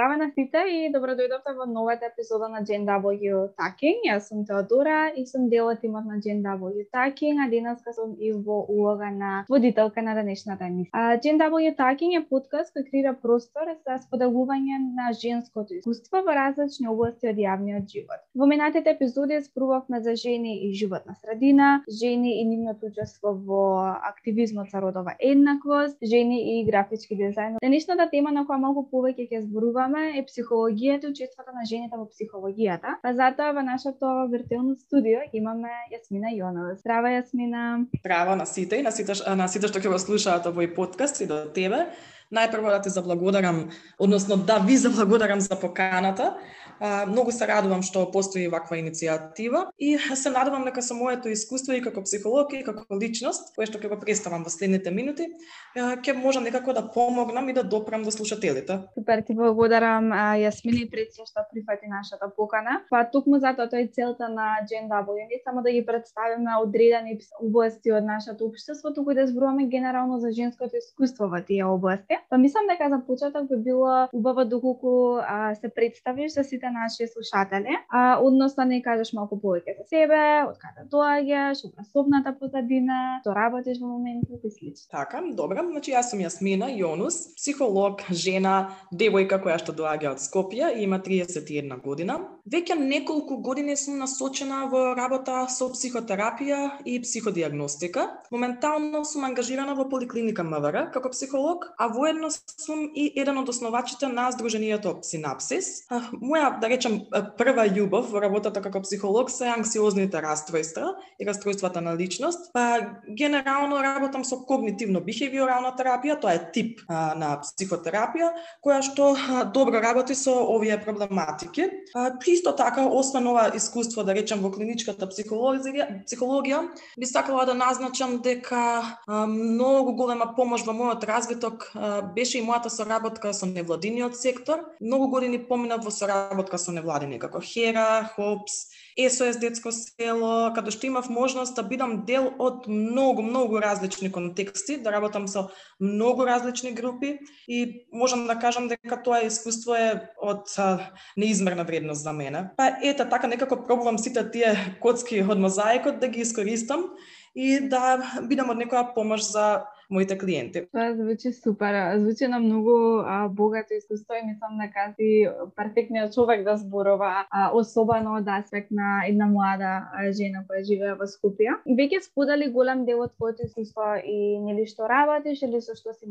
Здраво на сите и добро дојдовте во новата епизода на GNW Talking. Јас сум Теодора и сум дел од тимот на GNW Talking, а денеска сум и во улога на водителка на денешната емисија. GNW Talking е подкаст кој креира простор за споделување на женското искуство во различни области од јавниот живот. Во минатите епизоди зборувавме за жени и животна средина, жени и нивното учество во активизмот за родова еднаквост, жени и графички дизајн. Денешната тема на која малку повеќе ќе зборуваме е психологијата и учеството на жените во психологијата. Па затоа во нашето виртуелно студио имаме Јасмина Јонова. Здрава, Јасмина. Здраво на сите и на сите што ќе го слушаат овој подкаст и до тебе. Најпрво да ти заблагодарам, односно да ви заблагодарам за поканата. Многу се радувам што постои ваква иницијатива и се надевам дека со моето искуство и како психолог и како личност, кое што ќе го представам во следните минути, ќе можам некако да помогнам и да допрам до слушателите. Супер, ти благодарам, Јасмина, пред се што прифати нашата покана. Па токму затоа тоа е целта на GNW, не само да ги представиме одредени области од нашето општество, туку да зборуваме генерално за женското искуство во тие области. Па мислам дека за почеток би било убаво доколку се представиш за сите наши слушатели, односно не кажеш малку повеќе за себе, од каде доаѓаш, образовната позадина, што работиш во моментот и слично. Така, добро. Значи јас сум Јасмина Јонус, психолог, жена, девојка која што доаѓа од Скопје и има 31 година. Веќе неколку години сум насочена во работа со психотерапија и психодиагностика. Моментално сум ангажирана во поликлиника МВР како психолог, а воедно сум и еден од основачите на Сдруженијето Синапсис. Моја, да речем, прва љубов во работата како психолог се анксиозните расстройства и расстройствата на личност. Па генерално работам со когнитивно-бихевиорална терапија, тоа е тип на психотерапија, која што добро работи со овие проблематики. Исто така, освен ова искуство, да речем, во клиничката психологија, би сакала да назначам дека многу голема помош во мојот развиток беше и мојата соработка со невладиниот сектор. Многу години поминав во соработка со невладини како Хера, Хопс, СОС детско село, каде што имав можност да бидам дел од многу различни контексти, да работам со многу различни групи и можам да кажам дека тоа искуство е од неизмерна вредност за мене. Па ете така некако пробувам сите тие коцки од мозаикот да ги искористам и да бидам од некоја помош за моите клиенти. Тоа звучи супер, звучи на многу богато искуство и мислам дека си перфектниот човек да зборува, особено од аспект на една млада жена која живее во Скопје. Веќе сподели голем дел од твоето искуство и нели што работиш или со што си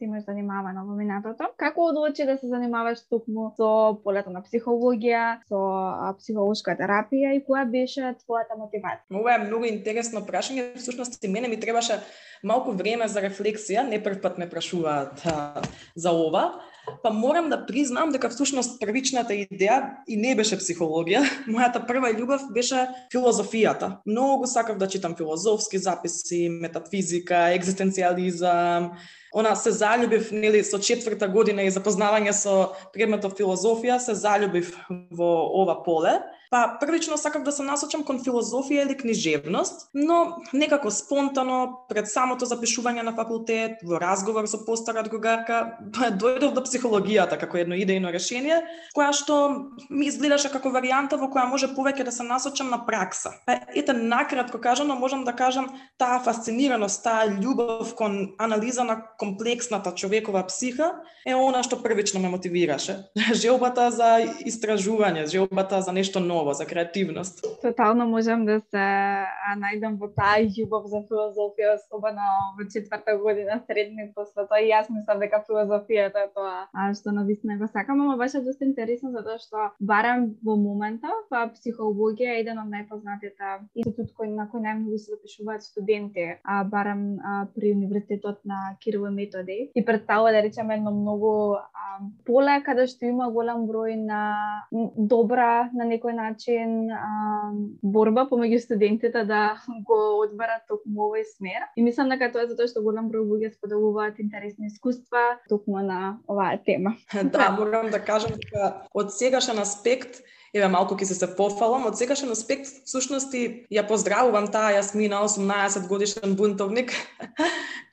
имаш занимавано во минатото. Како одлучи да се занимаваш токму со полето на психологија, со психолошка терапија и која беше твојата мотивација? Ова е многу интересно прашање, всушност и мене ми требаше малку време за рефлексија, не прв пат ме прашуваат за ова, па морам да признам дека всушност првичната идеја и не беше психологија. Мојата прва љубов беше филозофијата. Многу сакав да читам филозофски записи, метафизика, екзистенцијализам. Се заљубив, нели, со 4-та година и запознавање со предметот филозофија, се заљубив во ова поле. Па првично сакав да се насочам кон филозофија или книжевност, но некако спонтано пред самото запишување на факултет, во разговор со постара другарка, дојдов до психологијата како едно идејно решение, која што ми изгледаше како варијанта во која може повеќе да се насочам на пракса. Па ете, накратко кажано, можам да кажам, таа фасцинираност, таа љубов кон анализа на комплексната човекова психа е она што првично ме мотивираше. Желбата за истражување, желбата за нешто ново, за креативност. Тотално можам да се најдам во таа љубов за филозофија, особено во 4-та година средни, после тоа и јас мислам дека филозофијата е тоа што навистина го сакам, ама беше доста интересно затоа што барам во моментов психологија е еден од најпознатите институт на кој најмногу се запишуваат студенти, барам при универзитетот на Кирил и Методи и представува, да речеме, едно многу поле каде што има голем број на добра на некој начин борба помеѓу студентите да го одберат токму овој смер. И мислам дека тоа е затоа што голем број луѓе споделуваат интересни искуства токму на оваа тема. Да, морам да кажам дека од сегашен аспект Еве малку ќе се пофалам, од секашен аспект всушност ја поздравувам таа Јасмина, 18 годишен бунтовник,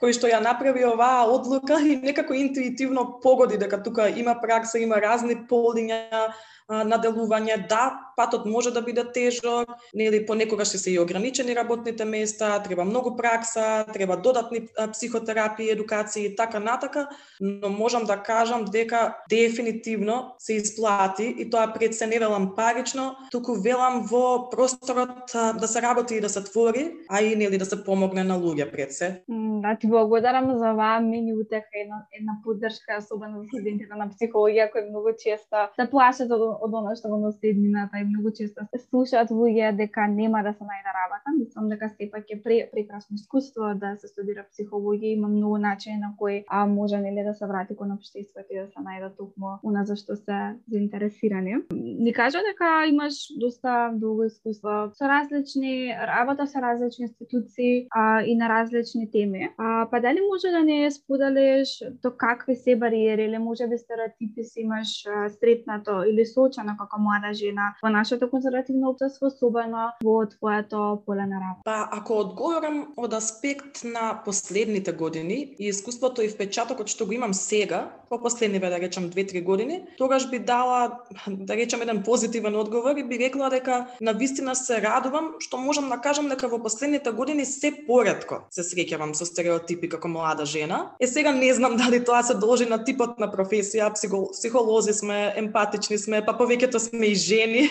кој што ја направи оваа одлука и некако интуитивно погоди дека тука има пракса, има разни полиња на делување. Да, патот може да биде тежок, нели понекогаш се и ограничени работните места, треба многу пракса, треба додатни психотерапии, едукации и така натака, но можам да кажам дека дефинитивно се исплати и тоа пред се не велам парично, туку велам во просторот да се работи и да се твори, а и нели да се помогне на луѓе пред се. Да, ти благодарам за оваа мини утеха, една поддршка, особено за студентите на психологија кои многу често се плашат од она што го носи еднината и многу често се слушаат луѓе дека нема да се најде работа. Мислам дека сепак е прекрасно искуство да се студира психологија, има многу начини на кои може нели да се врати кон општеството и да се најде токму она за што се заинтересирани. Ни кажа дека имаш доста долго искуство со различни работа со различни институции и на различни теми. Па дали може да не споделиш до какви се бариери или можеби стереотипи си имаш сретнато или соочено како млада жена во нашето конзервативно општество, особено во твоето поле на работа? Па ако одговорам од аспект на последните години и искуството и впечатокот што го имам сега, по последниве да речам 2-3 години, тогаш би дала да речам еден позитивен одговор и би рекла дека навистина се радувам што можам да кажам дека во последните години се поретко се среќавам со стереотипи како млада жена. Сега не знам дали тоа се должи на типот на професија, психолози сме, емпатични сме, па повеќето сме и жени,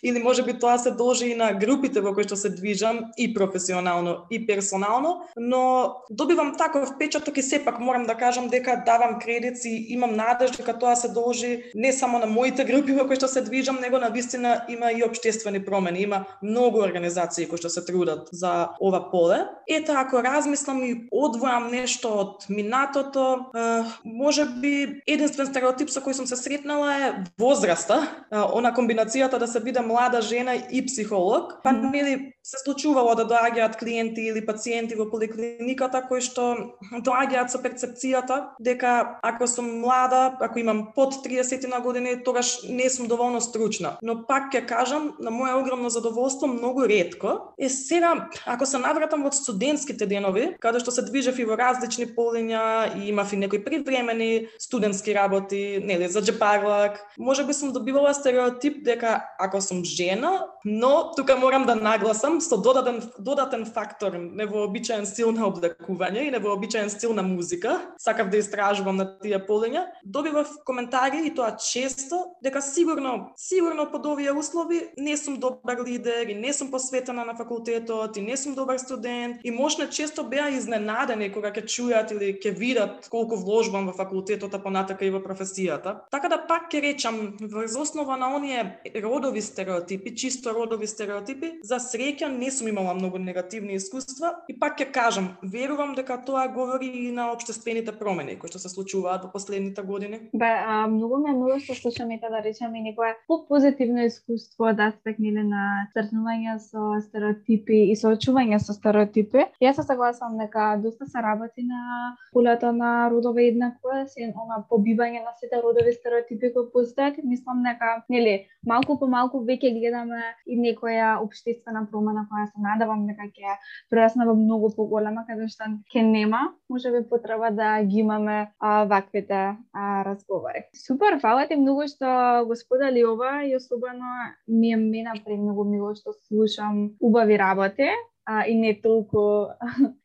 или можеби тоа се должи и на групите во кои што се движам и професионално и персонално, но добивам таков впечаток и сепак морам да кажам дека давам кредит и имам надеж дека тоа се должи не само на моите групи во кои што се движам, него навистина има и општествени промени, има многу организации кои што се трудат за ова поле. Ето ако размислам и одвојам нешто од минатото, можеби единствен стереотип со кој сум се сретнала е возраста, она комбинацијата да се биде млада жена и психолог, па нели се случувало да доаѓаат клиенти или пациенти во поликлиниката кои што доаѓаат со перцепцијата дека ако сум млада, ако имам под 30 на години, тогаш не сум доволно стручна. Но пак ќе кажам, на моје огромно задоволство, многу ретко. Сега, ако се навратам во студентските денови, каде што се движев и во различни полиња и имав и некои привремени студентски работи, нели, за джепарлак, можеби сум добивала стереотип дека ако сум жена, но тука морам да нагласам со додатен фактор, невообичаен стил на облекување и невообичаен стил на музика, сакав да истражувам на тие полиња, добивав коментари и тоа често дека сигурно под овие услови не сум добар лидер и не сум посветена на факултетот и не сум добар студент и можна често беа изненадени кога ќе чујат или ќе видат колку вложбам во факултетот, а понатака и во професијата. Така да пак ќе речам, врз основа на оние родови стереотипи, чисто родови стереотипи, за среќа не сум имала многу негативни искуства и пак ќе кажам, верувам дека тоа говори и на општествените промени кои што се случуваат во последните години. Многу ме мило што слушаме да речеме некое позитивно искуство од аспект на сретнување со стереотипи и соочување со стереотипи. Јас се согласувам дека доста се работи на полето на родова еднаквост и она побивање на сите родови стереотипи кои постојат. Мислам дека малку по малку веќе гледаме и некоја општествена промена која се надевам дека ќе прерасне во многу поголема, каде што ќе нема можеби потреба да ги имаме ваквите разговори. Супер, фала ти многу што го сподели ова и особено ми е премногу мило што слушам убави работи и не толку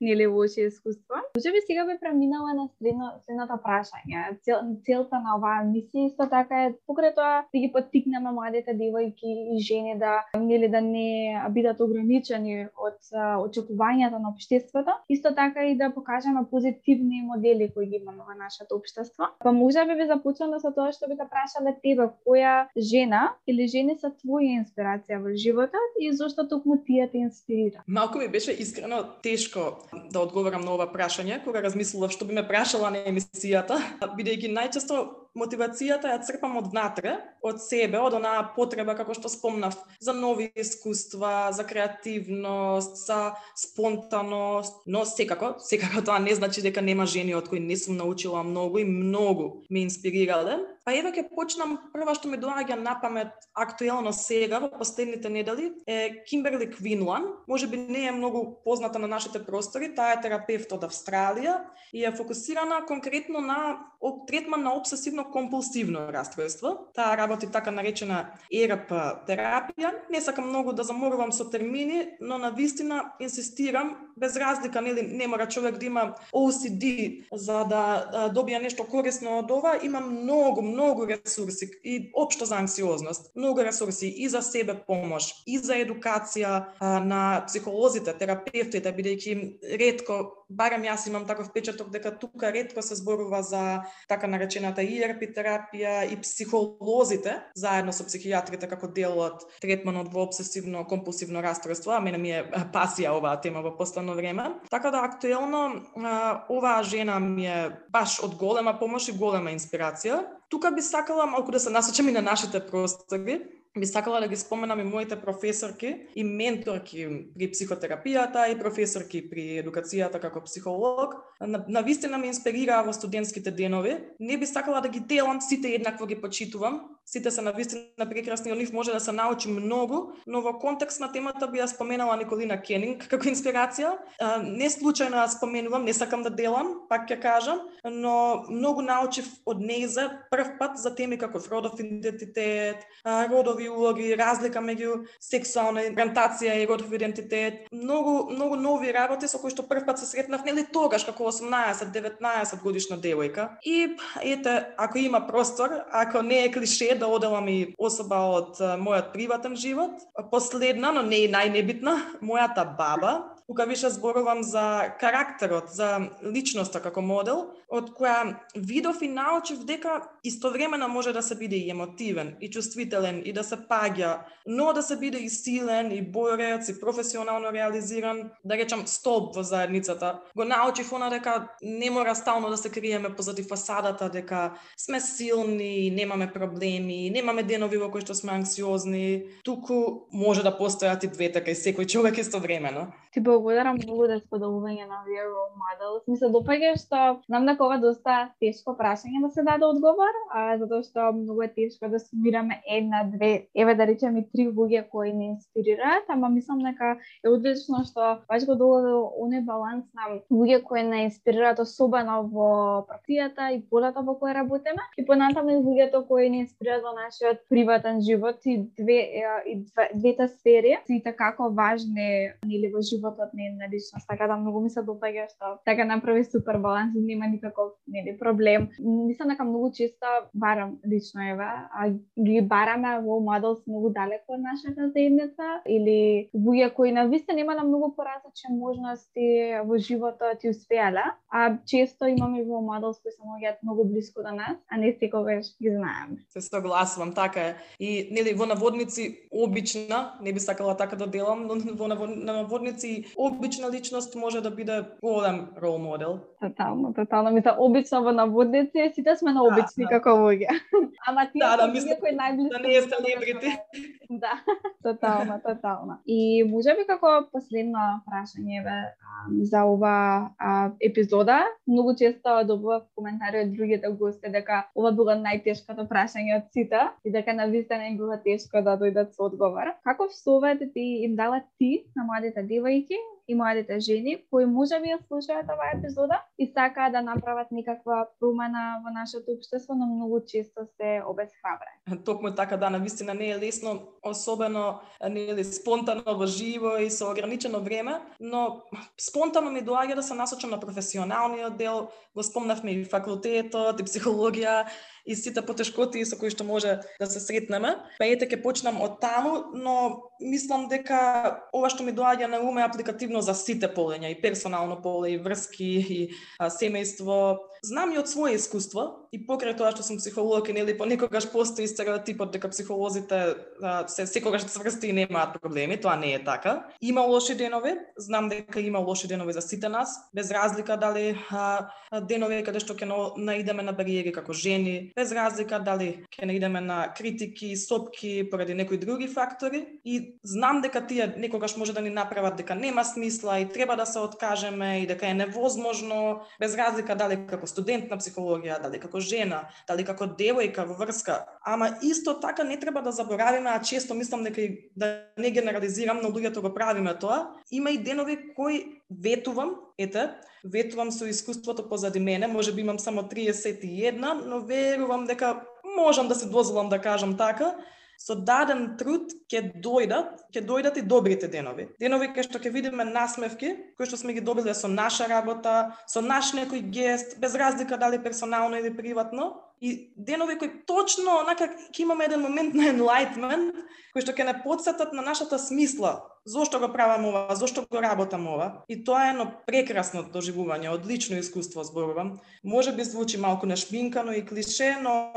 нели лоши искуства. Можеби сега би преминала на следното прашање. Целта на оваа емисија исто така е покрај тоа да ги поттикнеме младите девојки и жени да не бидат ограничени од очекувањата на општеството, исто така и да покажеме позитивни модели кои ги имаме во нашето општество. Па можеби би започнала со тоа што би те прашале тебе, која жена или жени се твоја инспирација во животот и зошто токму тие те инспирира? Малку ми беше искрено тешко да одговорам на ова прашање, кога размислував што би ме прашала на емисијата, бидејќи најчесто мотивацијата ја црпам од внатре, од себе, од онаа потреба, како што спомнав, за нови искуства, за креативност, за спонтаност, но секако тоа не значи дека нема жени од кои не сум научила многу и многу ме инспирирале. Па еве ќе почнам, прва што ми доаѓа на памет актуелно сега во последните недели е Кимберли Квинлан. Можеби не е многу позната на нашите простори, таа е терапевт од Австралија и е фокусирана конкретно на третман на обсесивно-компулсивно расстройство. Таа работи така наречена ЕРП терапија. Не сакам многу да заморувам со термини, но навистина инсистирам, без разлика, нели, не мора човек да има OCD за да добија нешто корисно од ова, има многу ресурси и општо за анксиозност. Многу ресурси и за себе помош, и за едукација на психолозите, терапевтите, бидејќи ретко, барем јас имам таков впечаток дека тука ретко се зборува за така наречената ERP терапија и психолозите заедно со психијатрите како дел од третманот во обсесивно-компулсивно расстройство, а мене ми е пасија оваа тема во последно време. Така да актуелно оваа жена ми е баш од голема помош и голема инспирација. Тука би сакала малку да се насочам и на нашите простори. Би сакала да ги споменам и моите професорки и менторки при психотерапијата и професорки при едукацијата како психолог. Навистина ме инспирираа во студентските денови. Не би сакала да ги делам, сите еднакво ги почитувам. Сите се навистина прекрасни, од нив може да се научи многу, но во контекст на темата би ја споменала Николина Кенинг како инспирација. Не случајно ја споменувам, не сакам да делам, пак ќе кажам, но многу научив од нејза прв пат за теми како родов идентитет, родови улоги, разлика меѓу сексуална ориентација и родов идентитет. Многу нови работи со кои што прв пат се сретнав, нели тогаш како 18-19 годишна девојка. И ете, ако има простор, ако не е клише да оделам и особа од мојот приватен живот, последна, но не и најнебитна, мојата баба. Тука више зборувам за карактерот, за личноста како модел, од која видов и научив дека истовремено може да се биде и емотивен, и чувствителен, и да се паѓа, но да се биде и силен, и борец, и професионално реализиран, да речам столб во заедницата. Го научив она дека не мора стално да се криеме позади фасадата, дека сме силни, немаме проблеми, немаме денови во кои што сме анксиозни, туку може да постојат и двете кај секој човек истовремено. Ти благодарам многу за споделување на овие role models. Ми се допаѓа што знам дека ова доста тешко прашање да се даде одговор, затоа што многу е тешко да сумираме една, две, еве да речеме 3 луѓе кои не инспирираат, ама мислам дека е одлично што баш го доаѓа до оној баланс на луѓе кои не инспирираат, особено во професијата и полата во која работиме, и понатаму и луѓето кои не инспирираат во нашиот приватен живот и двете сфери се како важни нели во животот на една личност. Така да многу ми се допаѓа што така направи супер баланс и нема никаков нели проблем. Мислам дека многу често барам лично ги бараме во models многу далеко од нашата заедница или луѓе кои навистина немале многу поразлични можности во животот и успеале, а често имаме во models кои се наоѓаат многу блиску до нас, а не секогаш ги знаеме. Се согласувам, така е. И нели во наводници обична, не би сакала така да делам, но во наводници обична личност може да биде голем рол модел. Тотално. Мисля, обично во наводници, сите сме на обични како луѓе. Ама тие луѓе кои најблиску... Да не е селебрити. Да, тотално. И можеби како последно прашање за ова епизода, многу често добував коментари од другите гости дека ова било најтешкото прашање од сите и дека навистина им било тешко да дојдат со одговор. Каков совет ти им дала ти на младите девојки и младите жени кои можеби ја слушаат оваа епизода и сакаат да направат некаква промена во нашето општество, но многу често се обесхрабрени? Токму така, да, навистина не е лесно, особено нели спонтано во живо и со ограничено време, но спонтано ми доаѓа да се насочам на професионалниот дел. Го спомнавме и факултетот, и психологија, и сите потешкоти со кои што може да се сретнеме. Па ете ќе почнам од таму, но мислам дека ова што ми доаѓа на ум е апликативно за сите полења, и персонално поле, и врски, и семејство. знам и од своје искуство и покрај тоа што сум психолог и нели понекогаш постои стереотипот дека психолозите се секогаш цврсти и немаат проблеми, тоа не е така. Има лоши денови, знам дека има лоши денови за сите нас, без разлика дали денови каде што ќе наидеме на бариери како жени, без разлика дали ќе наидеме на критики, сопки поради некои други фактори и знам дека тие некогаш може да ни направат дека нема смисла и треба да се откажеме и дека е невозможно, без разлика дали како студент на психологија, дали како жена, дали како девојка во врска. Ама исто така не треба да заборавиме, а често мислам дека да не генерализирам, но луѓето го правиме тоа. Има и денови кои ветувам со искуството позади мене, можеби имам само 31, но верувам дека можам да се дозволам да кажам така, со даден труд ќе дојдат и добрите денови. Денови кај што ќе видиме насмевки, кои што сме ги добиле со наша работа, со наш некој гест, без разлика дали персонално или приватно, и денови кои точно онака ќе имаме еден момент на enlightenment, кои што ќе не потсетат на нашата смисла. Зошто го правам ова, зошто го работам ова? И тоа е едно прекрасно доживување, одлично искуство зборувам. Може би звучи малку нашминкано и клише, но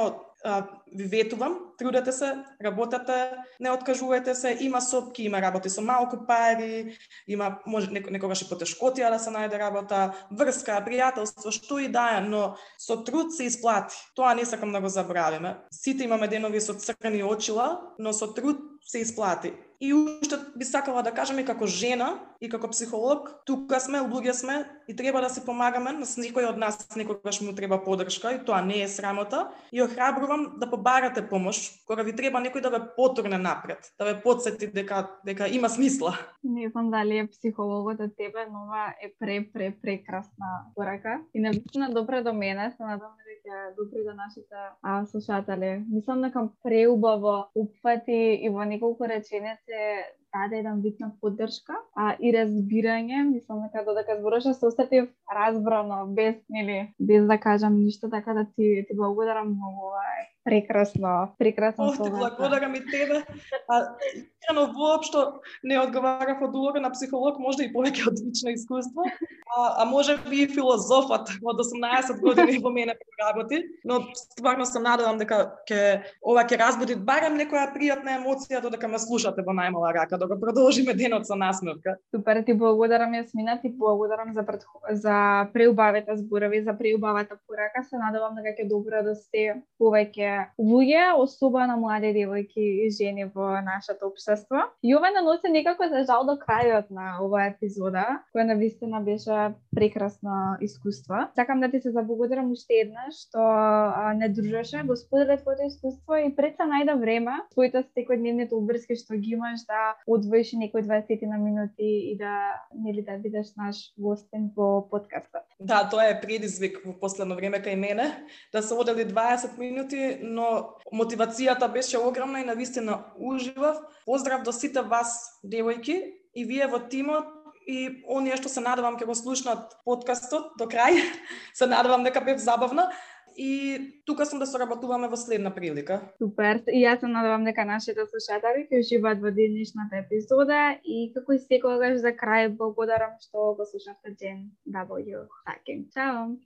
ви ветувам, трудете се, работете, не откажувајте се, има сопки, има работи со малку пари, има може некогаш и потешкотија да се најде работа, врска, пријателство, што и да е, но со труд се исплати. Тоа не сакам да го забравиме. Сите имаме денови со црни очила, но со труд се исплати. И уште би сакала да кажам и како жена и како психолог, тука сме, луѓе сме и треба да се помагаме, на некој од нас некогаш му треба поддршка и тоа не е срамота. И охрабрувам да побарате помош кога ви треба некој да ве потурне напред, да ве потсети дека има смисла. Не знам дали е психологот од тебе, но ова е прекрасна порака и навистина добра до мене, се надам дека добри до нашите слушатели. Мислам дека преубаво упфати и во неколку реченици даде еден вид на поддршка и разбирање. Мислам дека додека зборуваше се осетив разбрано, без да кажам ништо, така да ти благодарам многу. Прекрасно Ти благодарам и тебе. Искрено воопшто не одговарав од улога на психолог, можда и повеќе од лично искуство, а може би и филозофот од 18 години во мене работи, но стварно се надевам дека ова ќе разбуди барем некоја пријатна емоција додека ме слушате во најмала рака, да го продолжиме денот со насмевка. Супер, ти благодарам Јасмина, ти благодарам за преубавите зборови, за преубавата порака. Се надевам дека ќе допредосте повеќе луѓе, особено млади девојки и жени во нашето општество. И ова наноси некако за жал до крајот на оваа епизода, која навистина беше прекрасно искуство. Сакам да ти се заблагодарам уште еднаш што не дружеше, го сподели твоето искуство и пред се најде време, твоите секојдневните обврски што ги имаш да одвоиш некои 20 на минути и да бидеш наш гостин во подкастот. Да, тоа е предизвик во последно време кај мене, да се одели 20 минути, но мотивацијата беше огромна и навистина уживав. Поздрав до сите вас, девојки, и вие во тимот и оние што се надевам ќе го слушнат подкастот до крај. Се надевам дека бев забавна. И тука сум да соработуваме во следна прилика. Супер. И јас се надевам дека нашите слушатели ќе уживаат во денешната епизода и како и секогаш за крај благодарам што го слушавте Gen W Talking. Чао!